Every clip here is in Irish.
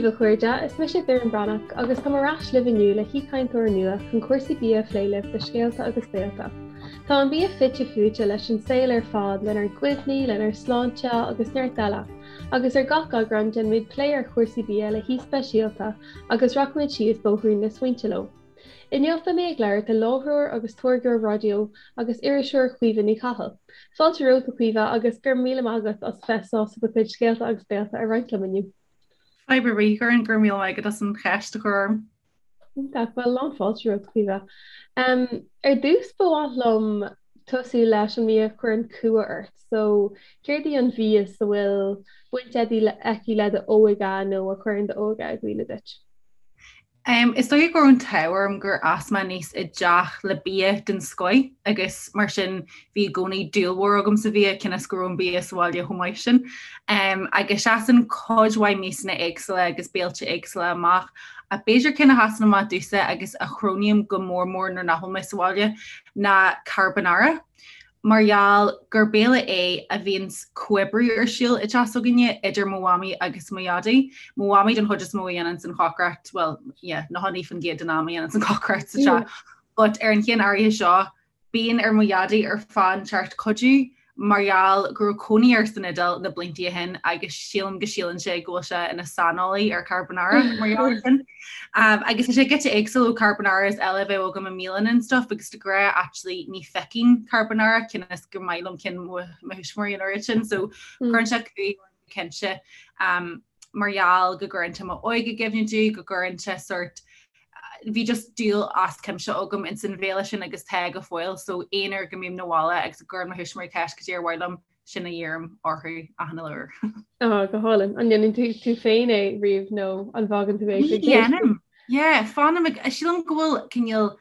daoibh a chairde, is mise Doireann Breathnach agus táim ar ais libh inniu le haoichainteoir nua chun cúrsaí bia a phlé libh do Scéalta agus Béalta. Tá an bia fite fuaite leis an saol ar fad, lenár gcuimhní, lenár sláinte agus neart eile, agus ar gach eagrán déanaimid plé ar chúrsaí bia le haoi speisialta agus rachaimid síos bóithrín na smaointe leo. Inniu beidh mé ag labhairt le láithreoir agus táirgeoir raidió agus iriseoir Caoimhe Ní Chathail. Fáilte romhat a Chaoimhe agus go raibh míle maith agat as bheith sásta do chuid scéalta agus béalta a roinnt liom inniu. Fadhb ar bith, Doireann, go raibh míle maith agat as an cheist a chur orm. Iontach, bhuel lán fáilte romhat Caoimhe. Ar dtús ba mhaith liom tosú leis an mbia a chuireann cumha ort. So céard í an mhias a bhfuil baint aici le d'óige nó a chuireann d'óige i gcuimhne duit? Is dóigh go raibh an t-ádh orm gur fhás mé aníos i dteach le bia den scoith agus mar sin bhí i gcónaí dúil mhór agam sa bhia cionn is go raibh an bia sa bhaile chomh maith sin. Agus seasann cuid mhaith miasanna éagsúla agus béilte éagsúla amach ach b'fhéidir ceann a sheasann amach domhsa agus a chronaím go mór mór nuair nach bhfuil mé sa bhaile ná carbonara. mar gheall gur béile é a bhíonns comhoibriú ar siúl i dteach s'againne idir mo mhamaí agus mo dhaidí. Mo mhamaí den chuid is mó a dhéananns an chócaireacht, bhuel, yeah, 99% den am a dhéananns an chócaireacht sa teach. But ar an cheann áirithe seo, bíonn ar mo dhaidí ar fáth inteacht cuidiú mar gheall go raibh cónaí air san Iodáil na blianta ó shin agus sílim go síleann sé go bhfuil sé ina saineolaí ar carbonara mar gheall ar sin. Agus tá sé giota éagsúil ó carbonaras eile a bheadh agam i mbialanna and stuff agus de ghnáth actually ní phiocainn carbonara cionn is gur maith liom cinn mo thuismitheoirí an oiread sin so cuireann sé cumha orm go cinnte mar gheall go gcuireann sé m'óige i gcuimhne domh, go gcuireann sé sort bhí just dúil as cuimse agam ins an bhéile sin agus tá go fóill so aon uair go mbím 'na bhaile agus go gcuireann mo thuismitheoirí ceist cad é ar mhaith liom sin a dheirim orthu achan uile uair. Á, go hálainn. An ndéanann tú tú féin é riamh nó an bhfágann tú é Ní dhéanaim. Yeah, fanaim ag, sílim go bhfuil cineál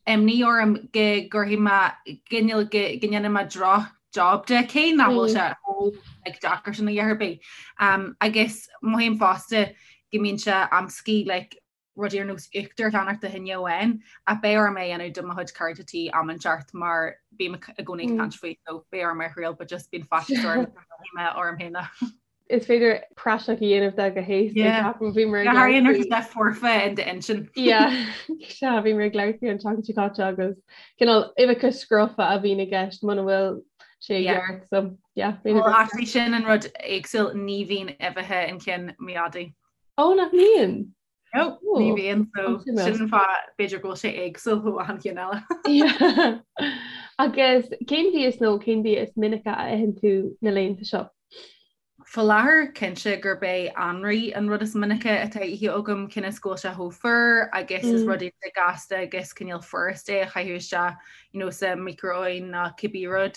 imní orm go gcuirfidh mé, cineál go go ndéanfaidh mé droch job de, cé nach bhfuil sé chomh like deacair sin a dhath ar bith. Um, agus mothaím fosta go mbíonn sé amscaí like rudaí ar nós uachtar a cheannacht do choinne amháin ach beidh orm é a dhéanamh do mo chuid cairde tí am inteacht mar bím i gcónaí ag caint faoi so beidh orm é a thriail but just bíonn faitíos orm go mé orm féin. Is féidir praiseach a dhéanamh de go héasca ceapaim bhí mé ag labhairt faoi. Tá foirfe in d'intinn. Yeah, sea bhí mé ag labhairt faoi an tseachtain seo caite agus cineál uibheacha scrofa a bhíonn i gceist muna bhfuil sé i gceart so yeah. Well actually sin an rud éagsúil ní bhíonn uibheacha in cinn mo dhaidí. Ó nach mbíonn? No, ní bhíonn so sin an fáth b'fhéidir go bhfuil sé éagsúil ó achan cheann eile. Agus cén mhias nó cén bia is minice a itheann tú na laethanta seo? Faoi láthair cinnte gurb é anraith an rud is minice atá ithe agam cionn is go bhfuil sé chomh fuar agus is rud iontach gasta agus cineál furast é a chaitheamh isteach you know, sa micro-oven nó cibé rud.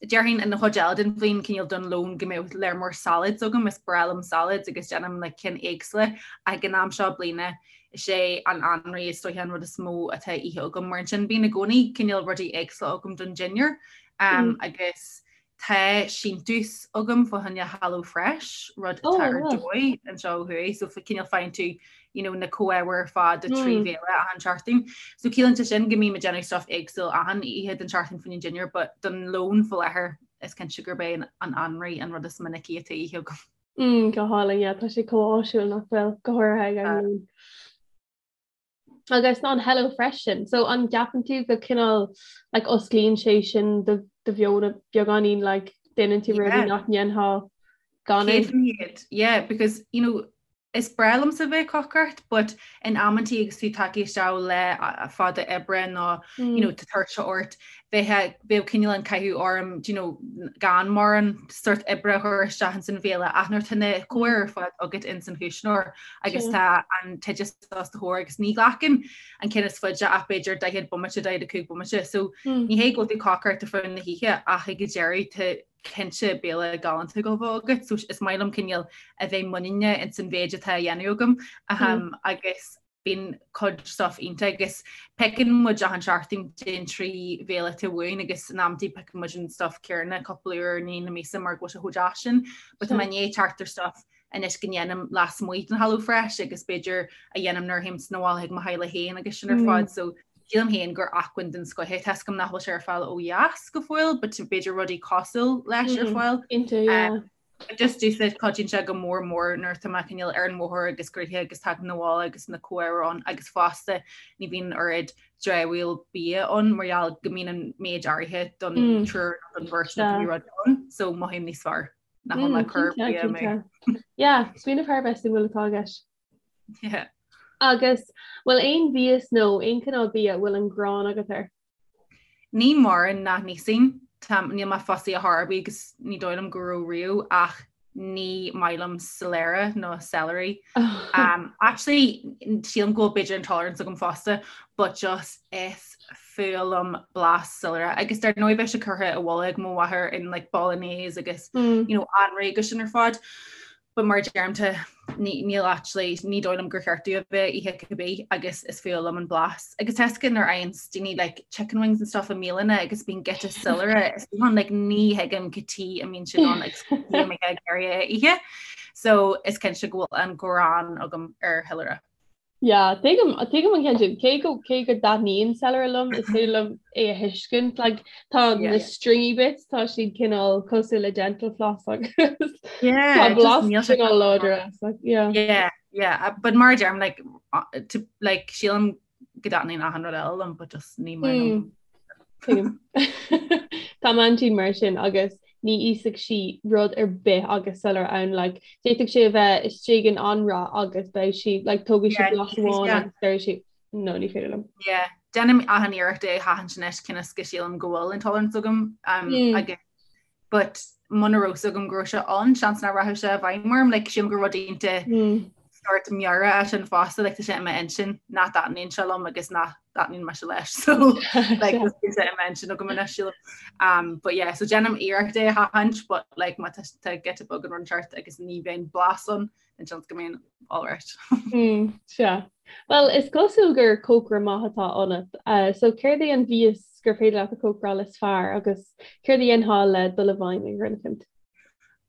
Déarfainn an chuid eile den bhliain cineál don lón go mbeadh léar mór salads agam, is breá liom salads agus déanaim like cinn éagsúla ach ag an am seo bliana is é an anraith is dóiche an rud is mó atá ithe agam mar ansin bíonn i gcónaí cineál rudaí éagsúla agam don dinnéar agus Tá síntiús agam fá choinne Hello Fresh, rud atá ar dóigh anseo ó thuaidh, so cineál faigheann tú you know, na comhábhair ar fad do 3 bhéile achan seachtain. So ciallaíonn sé sin go mbím ag déanamh stuff éagsúil achan oíche den tseachtain fá choinne an dinnéar, but don lón faoi láthair is cinnte gurb é an anraith an rud is minicí atá ithe agam. Mm, go hálainn, yeah, tá sé chomh áisiúil nach bhfuil, go háirithe ag an lón. Agus an Hello Fresh sin, so an gceapann tú go cineál like osclaíonn sé sin do do mheon beagáinín like déanann tú rudaí nach ndéanfá gan é? 100%, yeah, because you know is breá liomsa bheith ag cócaireacht but in amantaí agus tú tagtha isteach lá fada oibre nó you know tá tuirse ort bheadh bheadh cineál an cathú orm do you know gan mórán sort oibre a chur isteach ins an bhéile ach nuair tá na comhábhair ar fad agat ins an chuisneoir agus tá an t-oideas os do chomhair agus ní ghlacann an ceann is faide ach b'fhéidir 40 bomaite 45 bomaite so ní hé go bhfuil tú ag cócaireacht ar feadh na hoíche ach ag an deireadh tá cinnte béile galánta ag gabháil a bheith agat so is maith liom cineál a bheith muiníneach ins an mhéid atá á dhéanamh agam agus bíonn cuid stuff iontach agus piocann muid achan seachtain den 3 bhéile atá uainn agus in amantaí piocann muid an stuff céanna cúpla uair i ndiaidh na míosa mar go bhfuil sé chomh deas sin. But tá mé i ndiaidh teacht ar stuff anois go ndéanaim lasmuigh den Hello Fresh agus b'fhéidir a dhéanaim nuair a théim 'na bhaile chuig mo theaghlach féin agus sin ar fad so sílim féin gur acmhainn den scoth é. Tá 'fhios agam nach bhfuil sé ar fáil ó dheas go fóill but b'fhéidir rudaí cosúil leis ar fáil. Cinnte, yeah. Just domhsa cuidíonn sé go mór mór nuair atá mé cineál ar an bhóthar agus gnoitheach agus tagaim 'na bhaile agus na comhábhair ann agus fosta ní bhíonn oiread dramhaíl bia ann mar gheall go mbíonn an méid áirithe don triúr nó don bheirt nó cibé rud ann so mothaím níos fearr nach bhfuil mé ag cur bia amú. Yeah, smaoineamh thar a bheith suimiúil atá i gceist. Yeah. Agus bhfuil aon mhias nó aon chineál bia a bhfuil an ghráin agat air? Ní mórán nach n-íosfainn, níl mé fussy ar chor ar bith agus ní dóigh liom go raibh riamh ach ní maith liom soiléire nó celery. Um, actually, sílim go bhfuil b'fhéidir intolerance agam fosta, but just is fuath liom blas soiléire. Agus dar ndóigh bheadh sé curtha i bhfolach ag mo mháthair in like bolognese agus mm. you know, anraith agus sin ar fad. But mar a deirim tá níl actually ní dóigh liom gur cheart domh a bheith ag ithe cibé agus is fuath liom an blas. Agus tá a fhios agat nuair a fhaigheann daoine like chicken wings and stuff i mbialanna agus bíonn giota soiléire is bíonn like ní thuigim cad chuige a mbíonn siad ann agus cad chuige a mbeifeá ag iarraidh é a ithe. So is cinnte go bhfuil an ghráin agam ar shoiléire. Yeah, tuigim, tuigim an ceann sin. Cé go, cé go dtaitníonn celery liom, is féidir liom é a thuiscint. Like, tá na stringy bits, tá siad cineál cosúil le dental floss agus Yeah, tá just blas níl sé cineál láidir as. Like, yeah. Yeah, yeah, but mar a deirim, like, to, like, sílim go dtaitníonn achan rud eile liom, but just ní maith liom. Tuigim. Tá m'aintín mar sin agus ní íosfadh sí rud ar bith agus soiléire ann like d'fhéadfadh sé a bheith istigh in anraith agus beidh sí like tógfaidh sí Yeah, blas amháin yeah. agus deir sí no ní féidir liom. Yeah, déanaim achan iarracht é a sheachaint anois cionn is go sílim go bhfuil intolerance agam um, Mm. agus but muna raibh fhios agam go raibh sé ann, seans nach rachadh sé i bhfeidhm orm, like sílim gur rud iontach Mm. sort meabhrach é sin fosta, like tá sé i m'intinn nach dtaitníonn sé liom agus nach dtaitníonn mise leis, so like Sea. tá sé i m'intinn agam anois sílim. Um, but yeah, so déanaim iarracht é a sheachaint, but like má tá tá giota beag den rud inteacht agus ní bheidh blas ann, then seans go mbeinn alright. Mm, sea. Well, is cosúil gur cócaire maith atá ionat. Uh, so céard é an mhias gur féidir leat a chócaráil is fearr agus céard a dhéanfá le dul i bhfeidhm ar dhuine eicínt?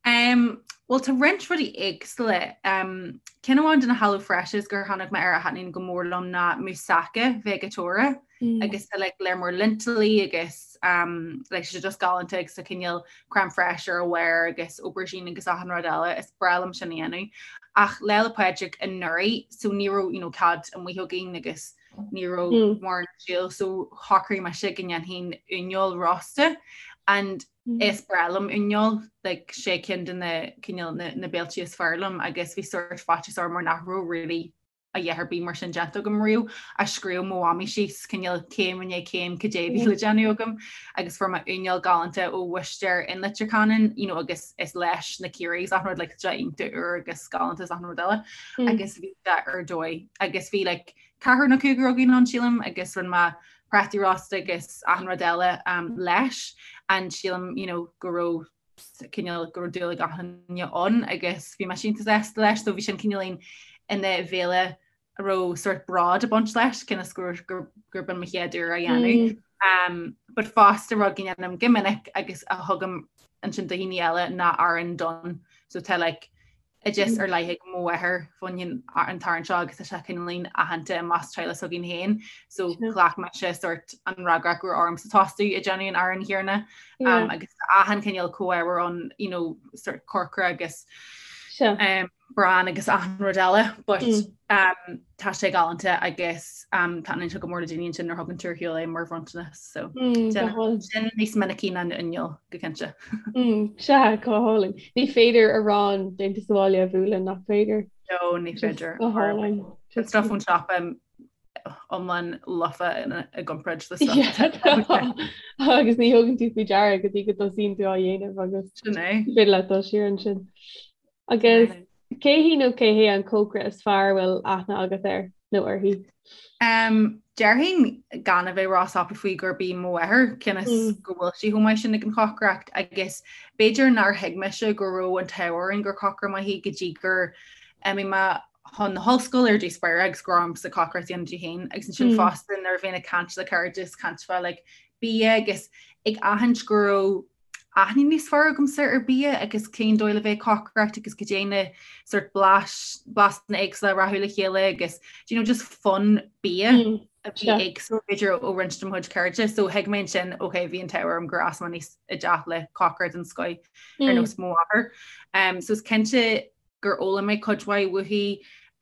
Um, well tá roinnt rudaí éagsúla. Um, ceann amháin de na Hello Freshes gur tháinig mé air a thaitníonn go mór liom ná moussaka veigeatóra. Mm. Agus tá like, lear mór lintilí agus um, like, sé just galánta agus tá cineál crème fraîche ar a bharr agus aubergine agus achan rud eile, is breá liom sin a dhéanamh. Ach Lá 'le Pádraig anuraidh, so ní raibh you know, cead amuigh againn agus ní raibh Mm. mórán ar siúl, so shocraigh mise go ndéanfainn uineoil rósta and Mm. is breá liom uineoil, like, sé ceann de na cineál na, na béiltí is fearr liom agus bhí sórt faitíos orm mar nach raibh really a dhath ar bith mar sin déanta agam riamh ach scríobh mo mhamaí síos cineál céim i ndiaidh céim cad é a bhí le déanamh agam agus fuair mé uineoil galánta ó bhuistéir in Leitir Ceanainn you know, agus is leis na Ciarraí is achan rud like, sé iontach úr agus galánta is achan rud eile Mm. agus bhí sé ar dóigh agus bhí like, ceathrar nó cúigear againn ann sílim agus rinne mé prátaí rósta agus achan rud eile um, leis and sílim you know, go raibh cineál go raibh dúil ag achan duine ann agus bhí mise iontach sásta leis so bhí sin cineáilín ina bhéile a raibh sort bród ag baint leis cionn is gur gur gur b'in mo chéad uair á dhéanamh. Mm. Um, but fosta rud go ndéanaim go minic agus a thugaim ansin do dhaoine eile ná arán donn. So tá like oideas ar leith ag mo mháthair faoin an t-arán seo agus tá sé cineáilín aitheanta i measc teaghlach s'againn féin so ghlac mise sort an fhreagracht go raibh ormsa tosú ag déanamh an aráin chéanna um, agus achan cineál comhábhar ann you know, sort corcra agus um, bran agus achan rud eile but mm. um, tá sé galánta agus um, taitníonn sé go mór le daoine ansin nuair a thugann tú ar shiúl é mar bhronntanas so mm, sin níos minicí ná an uineoil go cinnte. Mm, sea go hálainn. Ní féidir arán déanta sa bhaile a bhualadh nach féidir. No ní féidir. Go hálainn. Stuff ón siopa iomlán lofa i gcomparáid le stuff. Agus ní thugann tú faoi deara go dtí go dtosaíonn tú á dhéanamh agus Sin é. féidir leat dul siar ansin. Agus cé hí nó cé hé an cócaire is fearr a bhfuil aithne agat air nó uirthi? Um, déarfainn gan a bheith róscaipthe faoi gurb í mo mháthair cionn is Mm. go bhfuil sí chomh maith sin ag an chócaireacht agus b'fhéidir nár thuig mise go raibh an t-ádh orainn gur cócaire maith í go dtí gur imigh mé chun na hollscoile ar dtús báire agus go raibh ormsa cócaireacht a dhéanamh di féin agus ansin Mm. fosta nuair a bhínn ag caint le cairde is caint fá like, bia agus ag aithint go raibh. aithne níos fearr agamsa ar bia agus cén dóigh le bheith ag cócaireacht agus cad é na sort blais, blasanna éagsúla a rachadh le chéile agus do you know just fonn bia a bhí éagsúil b'fhéidir ó roinnt de mo chuid cairde. So thuig mé ansin ok bhí an t-ádh orm gur fhás mé aníos i dteach le cócaire den scoith ar nós mo mháthair. Um, so is cinnte gur fhoghlaim mé cuid mhaith uaithi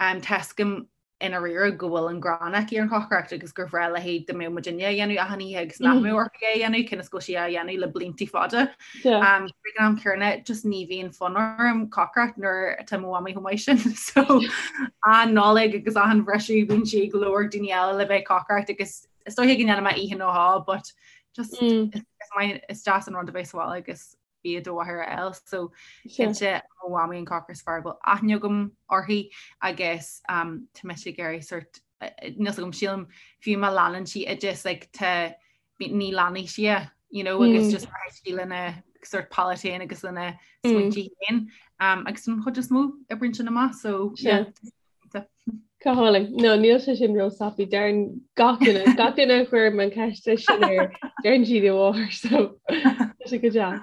um, tá a fhios agam i ndáiríre go bhfuil an ghráin aici ar an chócaireacht agus gur bhreá léi dá mbeadh muidinne á dhéanamh achan oíche agus nach mbeadh uirthi é a dhéanamh cionn is go bhfuil sí á dhéanamh le blianta fada. Ag an am céanna just ní bhíonn fonn orm cócaireacht nuair atá mo mhamaí chomh maith sin. So achan Nollaig agus achan bhriseadh bíonn sí ag lorg daoine eile le bheith ag cócaireacht agus is dóiche go ndéanfaidh mé oíche nó dhó but just is maith is deas an rud a bheith sa bhaile agus bia do mháthair a fháil. So cinnte mo mhamaí an cócaire is fearr a bhfuil aithne agam uirthi agus um, tá mise ag iarraidh sort níl a fhios agam sílim fiú má leanann sí oideas like, tá ní leanfaidh sí é, you know, agus mm. just rachaidh sí lena sort palate féin agus lena smaointe mm. féin um, agus an chuid is mó oibríonn sin amach so yeah. Go hálainn. No, níl sé sin ró-scaipthe. Deireann gach duine, gach duine a chuirim an ceist sin air, deireann siad a mháthair, so tá sé go deas.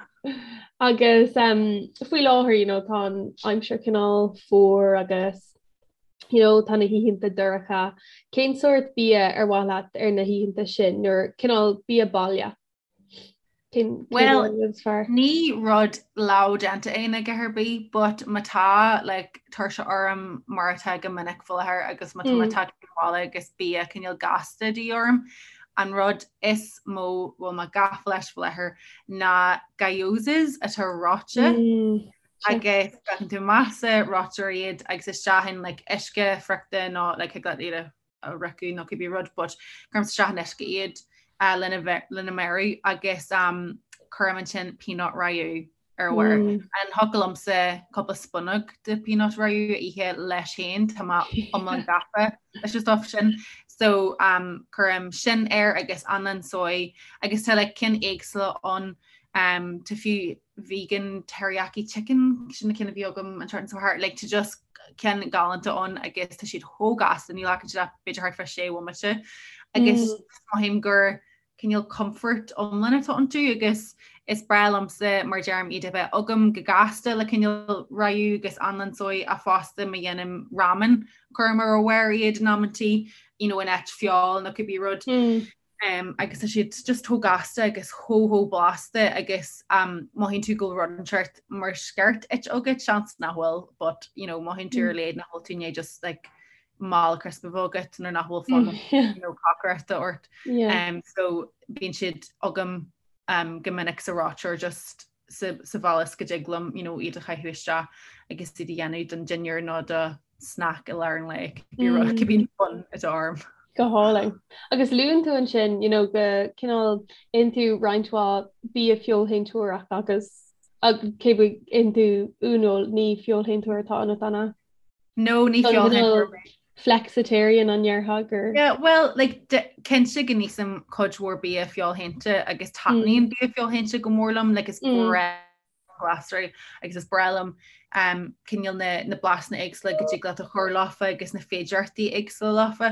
Agus um, faoi láthair, you know, tá an aimsir cineál fuar agus you know, tá na hoícheanta dorcha. Cén sórt bia ar mhaith leat ar na hoícheanta sin, nuair cineál bia baile? Well, ní rud leamh déanta é ná a dhath ar bith, but má tá like, tuirse orm mar atá go minic faoi láthair agus má tá mé tagtha abhaile agus bia cineál gasta de dhíth orm, an rud is mó a bhfuil mé gafa leis faoi láthair ná gyozas atá reoite mm, agus breacann tú amach sa reoiteoir iad agus isteach in like, uisce friochta nó like, thig leat iad a a fhriochadh nó cibé rud but cuirim isteach in uisce iad uh, lena, lena mbeiriú agus um, cuirim ansin peanut rayu ar a bharr. Mm. An thiocfadh liomsa cúpla spúnóg de peanut rayu a ithe leis féin tá mé iomlán gafa leis an stuff sin. So um, cuirim sin air agus anlann soy agus tá like, cinn éagsúla ann um, tá fiú vegan teriyaki chicken sin na cinn a bhí agam an tseachtain seo thart like tá just cinn galánta ann agus tá siad chomh gasta ní ghlacann siad ach b'fhéidir thart fá sé bhomaite agus mm. mothaím gur cineál comfort iomlán atá iontu agus is breá liomsa mar deirim iad a bheith agam go gasta le cineál rayu agus anlann soy ach fosta má dhéanaim ramen cuirim ar a bharr iad in amantaí you know, in áit feoil nó cibé rud. Mm. um, agus tá siad just chomh gasta agus chomh chomh blasta agus um, mothaíonn tú go bhfuil rud inteacht mar sciort ite agat seans nach bhfuil but you know, mothaíonn tú ar a laghad nach bhfuil tú i ndiaidh just like, mála crisp a bheith agat nuair nach bhfuil fonn mm, you know, cócaireachta ort. Yeah. Um, so bíonn siad agam um, go minic sa reoiteoir just sa, sa bhaile is go dtig liom you know, iad a chaitheamh isteach agus iad a dhéanamh don dinnéar nó do snack i lár an lae mm. cibé fonn atá orm. Go hálainn. Agus luann tú ansin you know, go cineál itheann tú roinnt mhaith bia feoilshéantóireach agus cé go itheann tú uaineoil ní feoilshéantóir atá ionat an ea? No, ní feoilshéantóir mé. Flexitarian an ndéarfá gur. Yeah, well, like, cinnte go n-ithim cuid mhór bia feoilshéanta agus taitníonn mm. bia feoilshéanta go mór liom, like, is mm. breá glasraí agus is breá liom um, cineál na, na blasanna éagsúla go dtig leat a chur leofa agus na féidearthachtaí éagsúla leofa.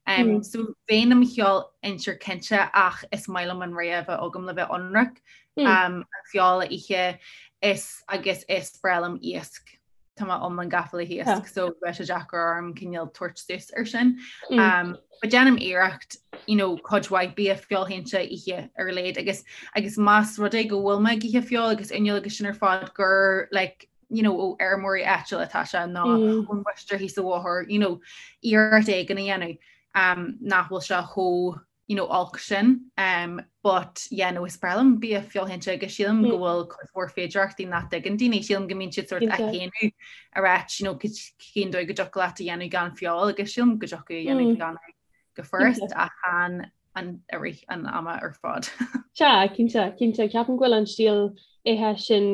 Um, mm. So bheinn i mo fheoilshéantóir cinnte ach is maith liom an rogha a bheith agam le bheith ionraic mm. um, an feoil a ithe is agus is breá liom iasc. tá mé iomlán gafa le hiasc so bheadh sé deacair orm cineál tabhairt suas ar sin. Mm. Um, but déanaim iarracht you know, cuid mhaith bia feoilshéanta a ithe ar a laghad agus agus más rud é go bhfuil mé ag ithe feoil agus uaineoil agus sin ar fad gur like, you know, ó fheirmeoirí áitiúla atá sé nó mm. ón bhúistéir thíos an bhóthar, you know, iarracht éigin a dhéanamh um, nach bhfuil sé chomh you know, olc sin. Um, but yeah, no, is breá liom bia feoilshéanta agus sílim mm. go bhfuil cuid mhór féidearthachtaí nach dtuigeann daoine, sílim go mbíonn siad sort á shéanadh ag ráit, you know, cén dóigh go dtiocfadh leat a dhéanamh gan feoil agus sílim go dtiocfadh a dhéanamh mm. gan go furast ach chan an i rith an ama ar fad. Sea, cinnte, cinnte, ceapaim go bhfuil an stíl ithe sin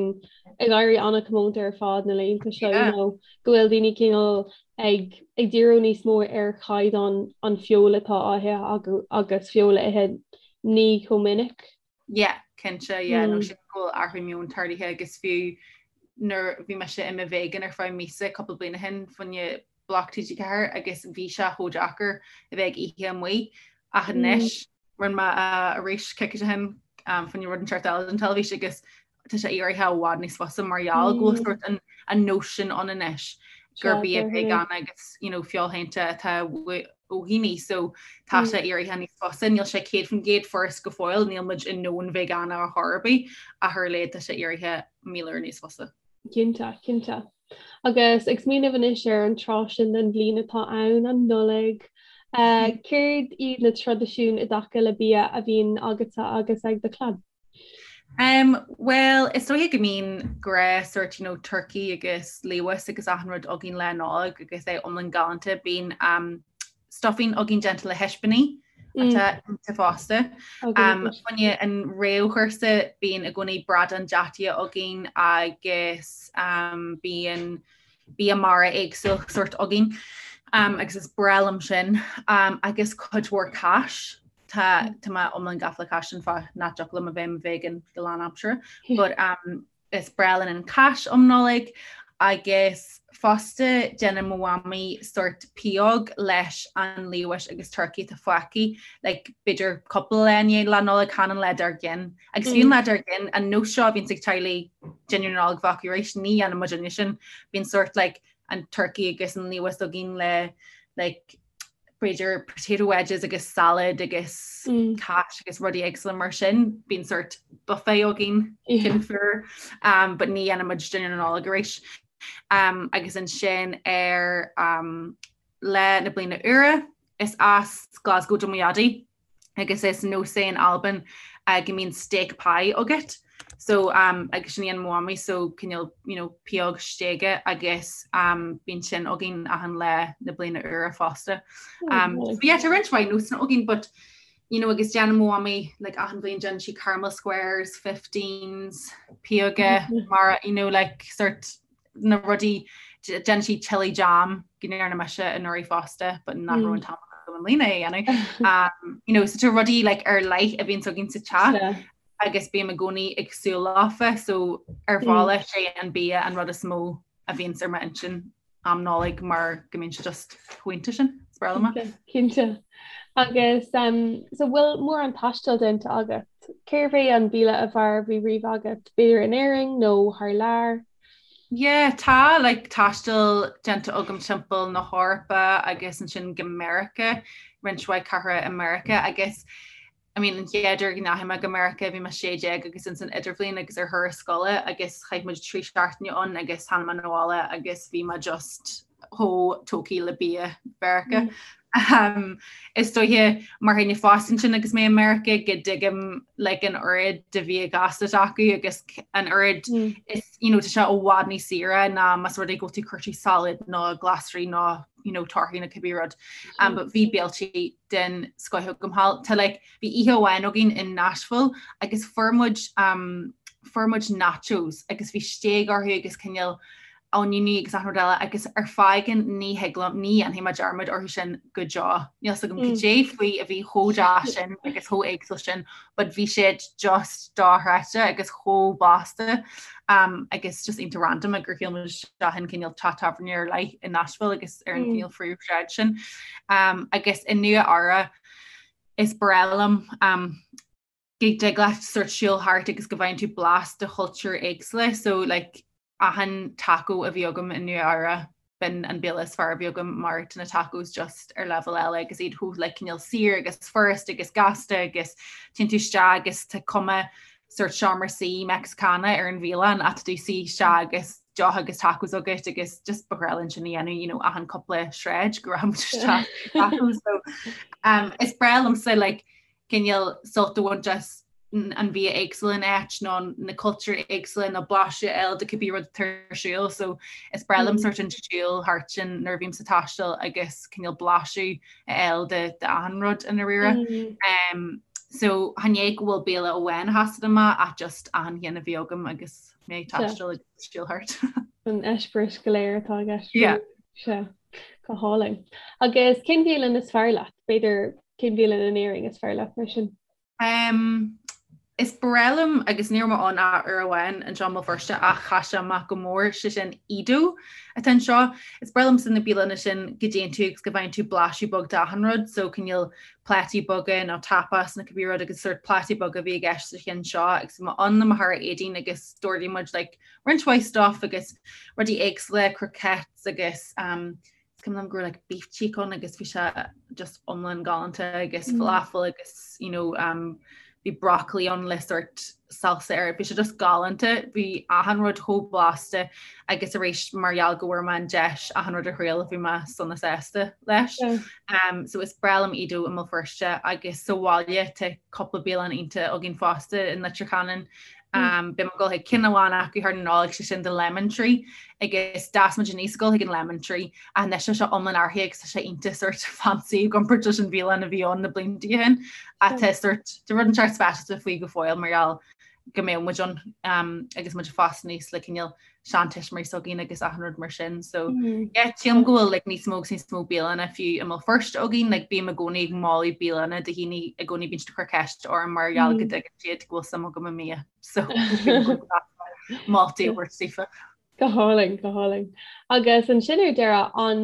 ag éirí an-chomónta ar fad na laethanta seo, you know, go bhfuil daoine cineál ag ag díriú níos mó ar chaighdeán an feoil atá á ithe agus feoil a ithe ní chomh minic. Yeah, cinnte, yeah, nó sin go bhfuil athrú meoin tarlaithe agus fiú nuair bhí mise i mo vegan ar feadh míosa cúpla bliain ó shin fá choinne Bloc TG4 agus bhí sé chomh deacair a bheith ag ithe amuigh ach anois rinne mé arís coicís ó shin fá choinne rud inteacht eile don teilifís agus. Tá sé éirithe i bhfad níos fusa mar gheall go bhfuil sórt an an nós sin ann anois gur bia veigeánach agus you know feoilshéanta atá ó dhaoine so tá sé éirithe níos fusa, níl sé 100% furast go fóill, níl muid i ndomhan veigeánach ar chor ar bith ach ar a laghad tá sé éirithe 1000 uair níos fusa. Cinnte, cinnte. Agus ag smaoineamh anois ar an tráth sin den bhliain atá ann, an Nollaig, céard iad na traidisiúin i dtaca le bia a bhíonn agatsa agus ag do chlann? Um, well, is dóiche go mbíonn gnáth sort, you know, turkey agus liamhás agus achan rud againn Lá Nollag agus é iomlán galánta. Bíonn um, stuffing againn déanta le hispíní atá iontach fosta. Um, fá choinne an réamhchúrsa bíonn i gcónaí bradán deataigh againn agus um, bíonn bia mara éagsúil sort againn um, agus is breá liom sin um, agus cuid mhór cáis. Tá tá mé iomlán gafa le cáis sin fáth nach dtiocfadh liom a bheith i mo vegan go lánaimseartha but um, is breá linn an cáis um Nollaig agus fosta déanann mo mhamaí sort pióg leis an liamhás agus turcaí atá fágtha like b'fhéidir cúpla lá i ndiaidh Lá Nollag chan an lá dár gcionn. Agus fiú an lá dár gcionn an nós seo a bhíonns ag teaghlaigh dinnéar na Nollag bheith acu arís ní dhéanann muidinne sin. Bíonn sort like an turcaí agus an liamhás againn le like b'fhéidir potato wedges agus salad agus mm. cáis agus rudaí éagsúla mar sin, bíonn sort buffet againn cinn fuar, um, but ní dhéanann muid dinnéar na Nollag arís. Um, agus ansin ar um, Lá na Bliana Úire is as Glasgow do mo dhaidí. agus is nós é in Albain go mbíonn steak pie agat so um, agus sin a dhéanann mo mhamaí so cineál you know, pióg stéige agus um, bíonn sin againn achan lá na bliana úire fosta. Um, so yeah, tá roinnt mhaith nósanna againn but you know, agus déanann mo mhamaí like, achan bhliain déanann sí caramel squares, fifteens, pióga mar you know, like, sort na rudaí, déanann sí chilli jam go ndearna mise anuraidh fosta but nach raibh an t-am agam i mbliana é a dhéanamh. Um, you know, so tá rudaí like, ar leith a bhíonns againn sa teach agus bím i gcónaí ag súil leofa so ar bhealach sé an bia an rud is mó a bhíonns ar m'intinn am Nollaig mar go mbíonn sé just chomh iontach sin. Is breá liom é. Cinnte. Agus um, so bhfuil mórán taistil déanta agat? Cérbh é an béile ab fhearr a bhí riamh agat, b'fhéidir in Éirinn nó thar lear? Yeah, tá like taisteal déanta agam timpeall na hEorpa agus ansin go Meiriceá, roinnt mhaith cathracha i Meiriceá agus I mean an chéad uair go ndeachaigh mé go Meiriceá bhí mé 16 agus ins an idirbhliain agus ar thuras scoile agus chaith muid 3 seachtaine ann agus tháinig mé 'na bhaile agus bhí mé just chomh tógtha le bia Mheiriceá. Um, is dóiche mar dhuine fásta ansin agus mé i Meiriceá go dtuigim like, an oiread de bhia gasta acu agus an oiread mm. is you know, tá sé i bhfad níos saoire ná más rud é go bhfuil tú ag cuartú salad nó glasraí nó you know, torthaí nó cibé rud. Um, but bhí béiltí den scoth agam thall. Tá like, bhí oíche amháin againn in Nashville agus fuair muid um, fuair muid nachos agus bhí stéig orthu agus cineál oinniúiní agus achan rud eile agus ar fáth éigin ní thig liom, ní dhéanfaidh mé dearmad orthu sin go deo. Níl 's agam cad é faoi a bhí chomh deas sin agus chomh éagsúil sin but bhí siad just dochreidte agus chomh blasta um, agus just iontach random gur shiúil muid isteach in cineál teach tábhairne ar leith i Nashville agus ar an mm. cineál phríomhshráid sin. Um, agus i Nua Eabhrac is breá liom um, go dtig leat sort siúl thart agus go bhfaigheann tú blas de chultúir éagsúla so like achan taco a bhí agam i Nua Eabhrac b'in an béile is fearr a bhí agam mar tá na tacos just ar leibhéal eile agus iad chomh like cineál saor agus furast agus gasta agus téann tú isteach agus tá cuma sort seomra suí Mexicana ar an bhialann ach tá tú suí isteach agus deoch agus tacos agat agus just ba ghnách linn sin a dhéanamh you know achan cúpla sráid go raibh muid isteach tacos so um, is breá liomsa like cineál sult a bhaint as an bhia éagsúil in áit nó na cultúir éagsúla nó blaiseadh a fháil de cibé rud atá ar siúl so is breá liom sort an siúl thart sin nuair a bhím sa taisteal agus cineál blaiseadh a fháil de de achan rud i ndáiríre. Um, so chan é go bhfuil béile amháin a sheasann amach ach just achan cheann a bhí agam agus mé ag taisteal agus siúl thart. An eispéireas go léir atá i gceist. Yeah. Sea, go hálainn. Agus cén bhialann is fearr leat? B'fhéidir Cén bhialann in Éirinn is fearr leat mar sin? Um, Is breá liom, agus ní raibh mé ann ach uair amháin anseo i mBéal Feirste ach chaith sé amach go mór, sé sin Edo atá anseo. Is breá liomsa na bialanna sin go dtéann tú agus go bhfaigheann tú blaiseadh beag d'achan rud, so cineál plátaí beaga nó tapas nó cibé rud agus sórt plátaí beaga a bhí i gceist sa cheann seo agus bhí mé ann le mo chara Aideen agus d'ordaigh muid like roinnt mhaith stuff agus rudaí éagsúla, croquettes agus um, Is cuimhin liom go raibh like beef cheek ann agus bhí sé just iomlán galánta agus mm. falafel agus you know, um, bhí broccoli ann le sort salsa air. Bhí sé just galánta, bhí achan rud chomh blasta agus arís mar gheall go bhfuair mé an deis achan rud a thriail bhí mé sona sásta leis. Yeah. Um, so is breá liom Edo i mBéal Feirste agus sa bhaile tá cúpla bialann iontach againn fosta in Leitir Ceanainn Beidh mé ag dul chuig ceann amháin acu thar na Nollag, sé sin The Lemon Tree, agus d'fhás muid aníos ag dul chuig an Lemon Tree ach anois tá sé iomlán athraithe agus tá sé iontach sort fancy i gcomparáid leis an bhialann a bhí ann na blianta ó shin. Ach tá sort tá rud inteacht speisialta faoi go fóill mar gheall go mbeadh muid ann agus muid ag fás aníos le cineál seantuismitheoirí s'againn agus achan rud mar sin. So mm. yeah, sílim go bhfuil like, níos mó agus níos mó bialanna fiú i mBéal Feirste againn, like, bím i gcónaí ag moladh bialanna do dhaoine i gcónaí bíonn siad ag cur ceist orm mar gheall go mm. dtuigeann siad go bhfuil suim agam i mbia. So moltaí a thabhairt daofa. Go hálainn, go hálainn. Agus ansin ar deireadh an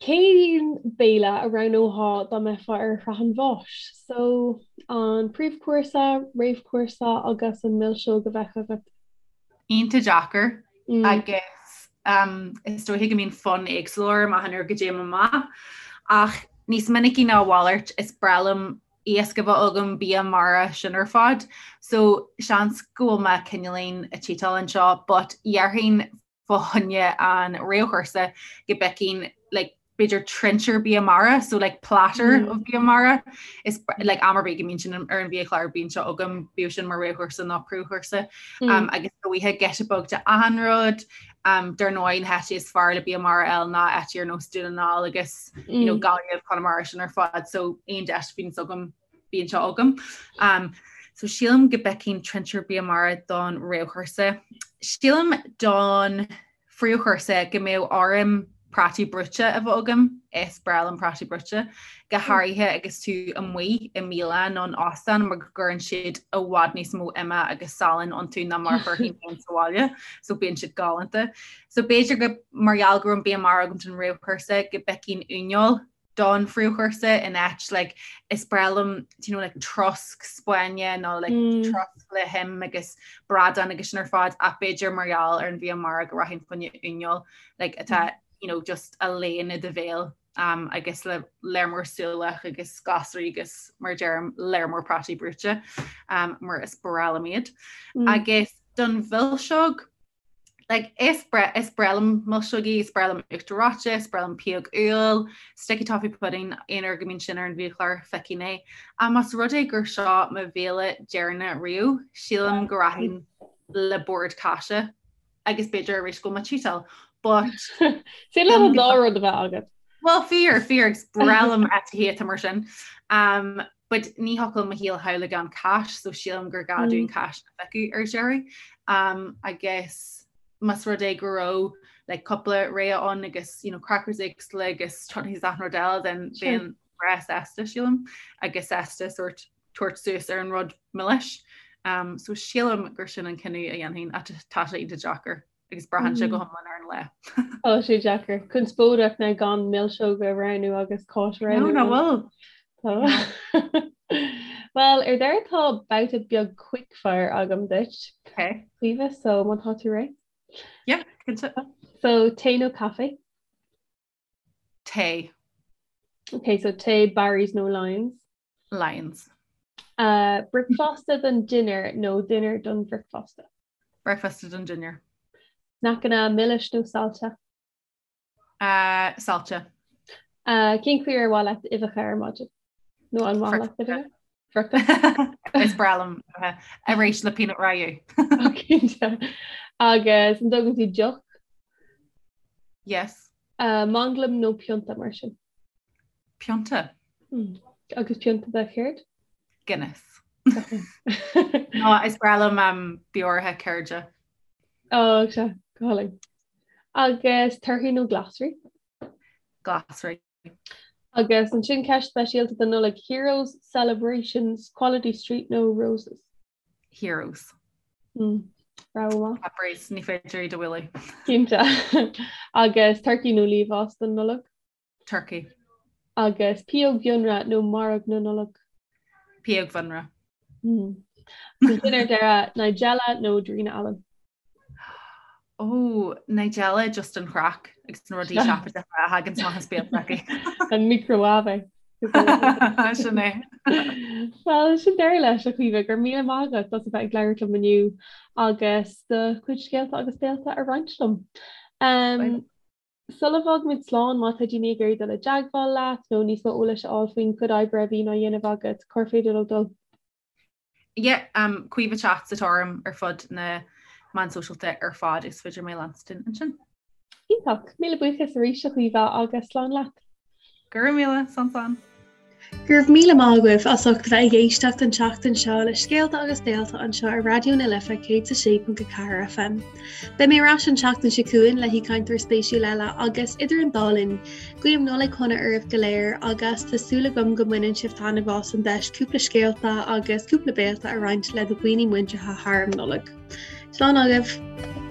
cén béile a roghnófá dá mbeifeá ar shraith an bháis? So an príomhchúrsa, réamhchúrsa agus an milseog a bheadh agat? Iontach deacair agus is dóiche go mbíonn fonn éagsúil orm achan uair go dtéim amach ach níos minicí ná a mhalairt is breá liom iasc a bheith agam, bia mara, sin ar fad. So seans go bhfuil mé cineáilín ag cheatáil anseo but dhéarfainn fá choinne an réamhchúrsa go bpiocfainn like b'fhéidir trinsiúr bia mara, so like platter mm. of bia mara is like am ar bith go mbíonn sin ar an bhiachlár bíonn sé agam bíodh sin mar réamhchúrsa nó príomhchúrsa mm. um, agus dóiche giota beag de achan rud um, dar ndóigh na háite is fearr le bia mara a fháil ná áit ar nós Dún na nGall agus mm. you know, mm. Gaillimh Conamara sin ar fad so aon deis a bhíonns agam bíonn sé agam. Um, so sílim go bpiocfainn trinsiúr bia mara don réamhchúrsa. Sílim don phríomhchúrsa go mbeadh orm prátaí brúite a bheith agam, is breá liom prátaí brúite, go háirithe agus tú amuigh i mbialann nó in óstán mar go gcuireann siad i bhfad níos mó ime agus salainn iontu ná mar a chuirfinn féin sa bhaile, so bíonn siad galánta. So b'fhéidir go mar gheall go raibh an bia mara agam don réamhchúrsa go bpiocfainn uaineoil don phríomhchúrsa in áit like is breá liom do you know like trosc Spáinne nó like mm. trosc le him agus bradán agus sin ar fad ach b'fhéidir mar gheall ar an bhia mara go rachainn fá choinne uaineoil like atá mm. you know just a léann i do bhéal um, agus le léar mór súlach agus glasraí agus mar deirim léar mór prátaí brúite um, mar is breá liom iad. Mm. Agus don mhilseog Like, is breá is breá liom milseogaí, is breá liom uachtar reoite, is breá liom pióg úll, sticky toffee pudding, aon uair go mbíonn sin ar an bhiachlár, feicfidh mé. Ach más rud é gur seo mo bhéile deireanach riamh, sílim go rachainn le bord cáise agus b'fhéidir arís go bhfuil mé ag cheatáil. But Is le an dá rud a bheith agat. Well, fíor, fíor, agus breá liom eitithí atá mar sin. Um, but ní thiocfadh liom mo shaol a shamhlú gan cáis so sílim gur gá dúinn cáis a phiocadh ar deireadh. Um, agus más rud é go raibh like, cúpla rogha ann agus you know, crackers éagsúla agus chutneys achan rud eile then bheinn breá sásta sílim agus sásta sort tabhairt suas ar an rud milis. Um, so sílim gur sin an cinneadh a dhéanfainn ach tá sé iontach deacair. agus braitheann sé go hiomlán ar an lá. Tá sé deacair. Conspóideach ná gan milseog a roghnú agus cáis a roghnú. No, nach bhfuil. Well, ar deireadh tá babhta beag quickfire agam duit. Okay. Caoimhe, so má tá tú réidh? Yeah, cinnte. So tae nó caife? Tae. Okay, so tae, Barry's nó Lyons? Lyons. Uh, bricfeasta don dinnéar nó dinnéar don bhricfeasta? Bricfeasta don dinnéar. Sneaiceanna milis nó saillte? Uh, saillte. Uh, cén chaoi ar mhaith leat uibheacha ar maidin? Nó an mhaith leat uibheacha? Friochta? Is breá liom arís le peanut ragú. Agus an dtógann tú deoch? Yes. Uh, manglam nó pionta mar sin? Pionta. Mm. Agus pionta de chéard? Guinness. Nó is breá liom um, beoraithe ceirde. Ó sea, go hálainn. Agus torthaí nó glasraí? Glasraí. Agus ansin ceist speisialta don Nollaig, Heroes, Celebrations, Quality Street nó Roses? Heroes. Rogha mhaith. Cadbury's, ní féidir iad a bhualadh. Cinnte. Agus turcaí nó liamhás don Nollaig? Turcaí. Agus pióg bhiorra nó mairg na Nollag? Pióg bhiorra. Ansin ar deireadh, Nigella nó Darina Allen? Ó, Nigella just an chraic agus na rudaí seafóideacha a thagann amach as béal s'aici. An microwave. Sin é. Well, sin deireadh leis a Chaoimhe, go raibh míle maith agat as a bheith ag labhairt liom inniu agus do chuid scéalta agus béalta a roinnt liom. Um, Sula bhfágaimid slán, má tá daoine ag iarraidh dul i dteagmháil leat nó níos mó eolais a fháil faoin chuid oibre a bhíonn á dhéanamh agat, cár féidir leo dul? Yeah, um, Caoimhe Chats atá orm ar fud na meán sóisialta ar fad is féidir mé a leanstan ansin. Iontach! Míle buíochas arís a Chaoimhe agus slán leat. Go raibh míle, slán slán. Go raibh míle maith agaibh as ucht a bheith ag éisteacht an tseachtain seo le Scéalta agus Béalta anseo ar Raidió na Life 106.4 FM. Beidh mé ar ais an tseachtain seo chugainn le haoichainteoir spéisiúil eile agus idir an dá linn, guím Nollaig shona oraibh go léir agus tá súil agam go mbaineann sibh taitneamh as an deis cúpla scéalta agus cúpla béalta a roinnt le do dhaoine muinteartha thar an Nollaig. Slán agaibh!